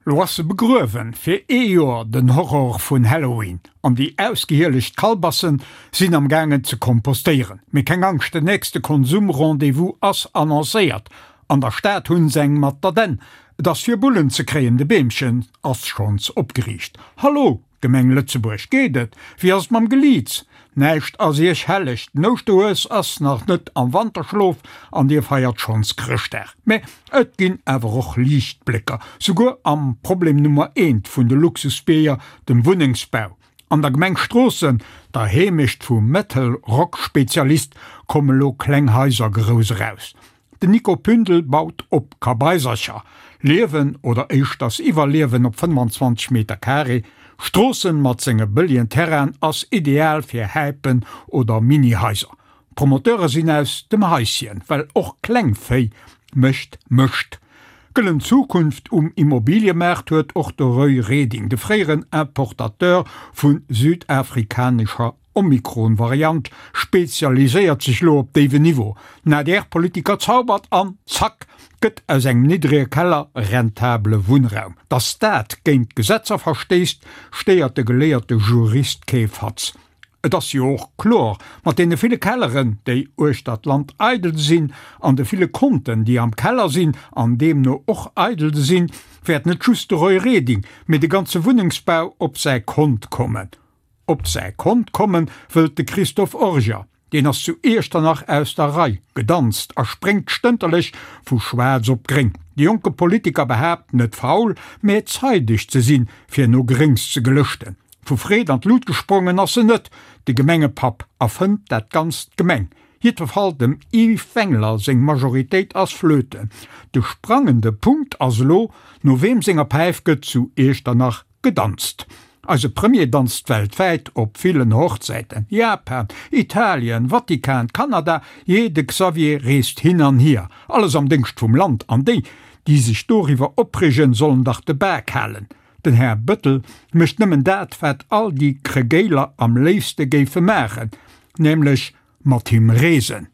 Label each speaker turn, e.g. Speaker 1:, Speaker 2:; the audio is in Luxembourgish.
Speaker 1: Lo ass se begruewen fir ee Joer, den Horror vun Halloween. An déi ausgehielegt Kalbassen sinn am gaangen ze kompostéieren. Mee keng Angscht, den nächste Konsum-Rendez-vous ass annoncéiert. An der Stad hunn se eng mat der Dänn. Et ass fir Bullen ze kréien, de Beemchen ass schonns opgeriicht. Hallo! Gemeng Lëtzebuerg, geet et? Wéi ass et mam Geliits? Näischt ass iech helleg, den Ouschterhues ass nach net am Wanterschlof an dir feiert schonns Chrëschtdag. Mä et ginn awer och Liichtblécker, souguer am Problem Nummer eent vun de Luxusbierger, dem Wunnengsbau. An der Gemeng Stroossen, der Heemecht vum Metal-Rock-Spezialist, komme lo kleng Haiser grouss eraus. Den Nico Pündel baut op Kabaisercher. Liewen, oder éischters iwwerliewen op 25 Meter Carré. Stroossen mat senge bëllien Terrainen ass ideal fir Häipen oder Mini-Haiser. D'Promoteure sinn aus dem Haisschen, well och Klengvéi mécht Mëscht. Gëllen Zukunft um Immobiliëmaart huet och de Roy Reding, de fréieren Importateur vu südafrikanescher Omikron-Variant spezialiséiert sech lo op déiwen Niveau. Den ADR-Politiker zaubert an zack gëtt aus engem niddrege Keller rentable Wunnraum. Dass dat géint d'Gesetzer verstéisst, stéiert de geléierte Jurist kee Fatz. Et ass jo och kloer, mat deene ville Kelleren, déi uechter d'Land eidel sinn, an de ville Konten, déi am Keller sinn an deemno och eidel sinn, wäert net just de Roy Reding, mee de ganze Wunnengsbau op säi Kont kommen. Op säi Kont kommen wëllt de Christophe Orger. Deen ass zu Iechternach aus der Rei gedanzt a spréngt stënterlech vu schwaarz op gréng. De jonke Politiker behaapt net faul, mä zeideg ze sinn, fir no Gréngs ze gelëschten. Vu Freed an d'Lut gesprongen ass en net, de Gemengepapp, a fënnt dat Ganzt gemeng. Jiddwerfall dem Yves Wengler seng Majoritéit ass flöten. De sprangende Punkt ass elo, no weem senger Päif gëtt zu Iechternach Gedanzt. Eise Premier danzt weltwäit op villen Hochzäiten, Japan, Italien, Vatikan, Kanada, jee de Xavier reest hin an hier, alles am Déngscht vum Land, an déi, déi sech doriwwer opreegen, sollen dach de Bak halen. Den Här Bëttel mécht nëmmen dat, wat all déi Kregéiler am léifste géife maachen, nämlech mat him reesen.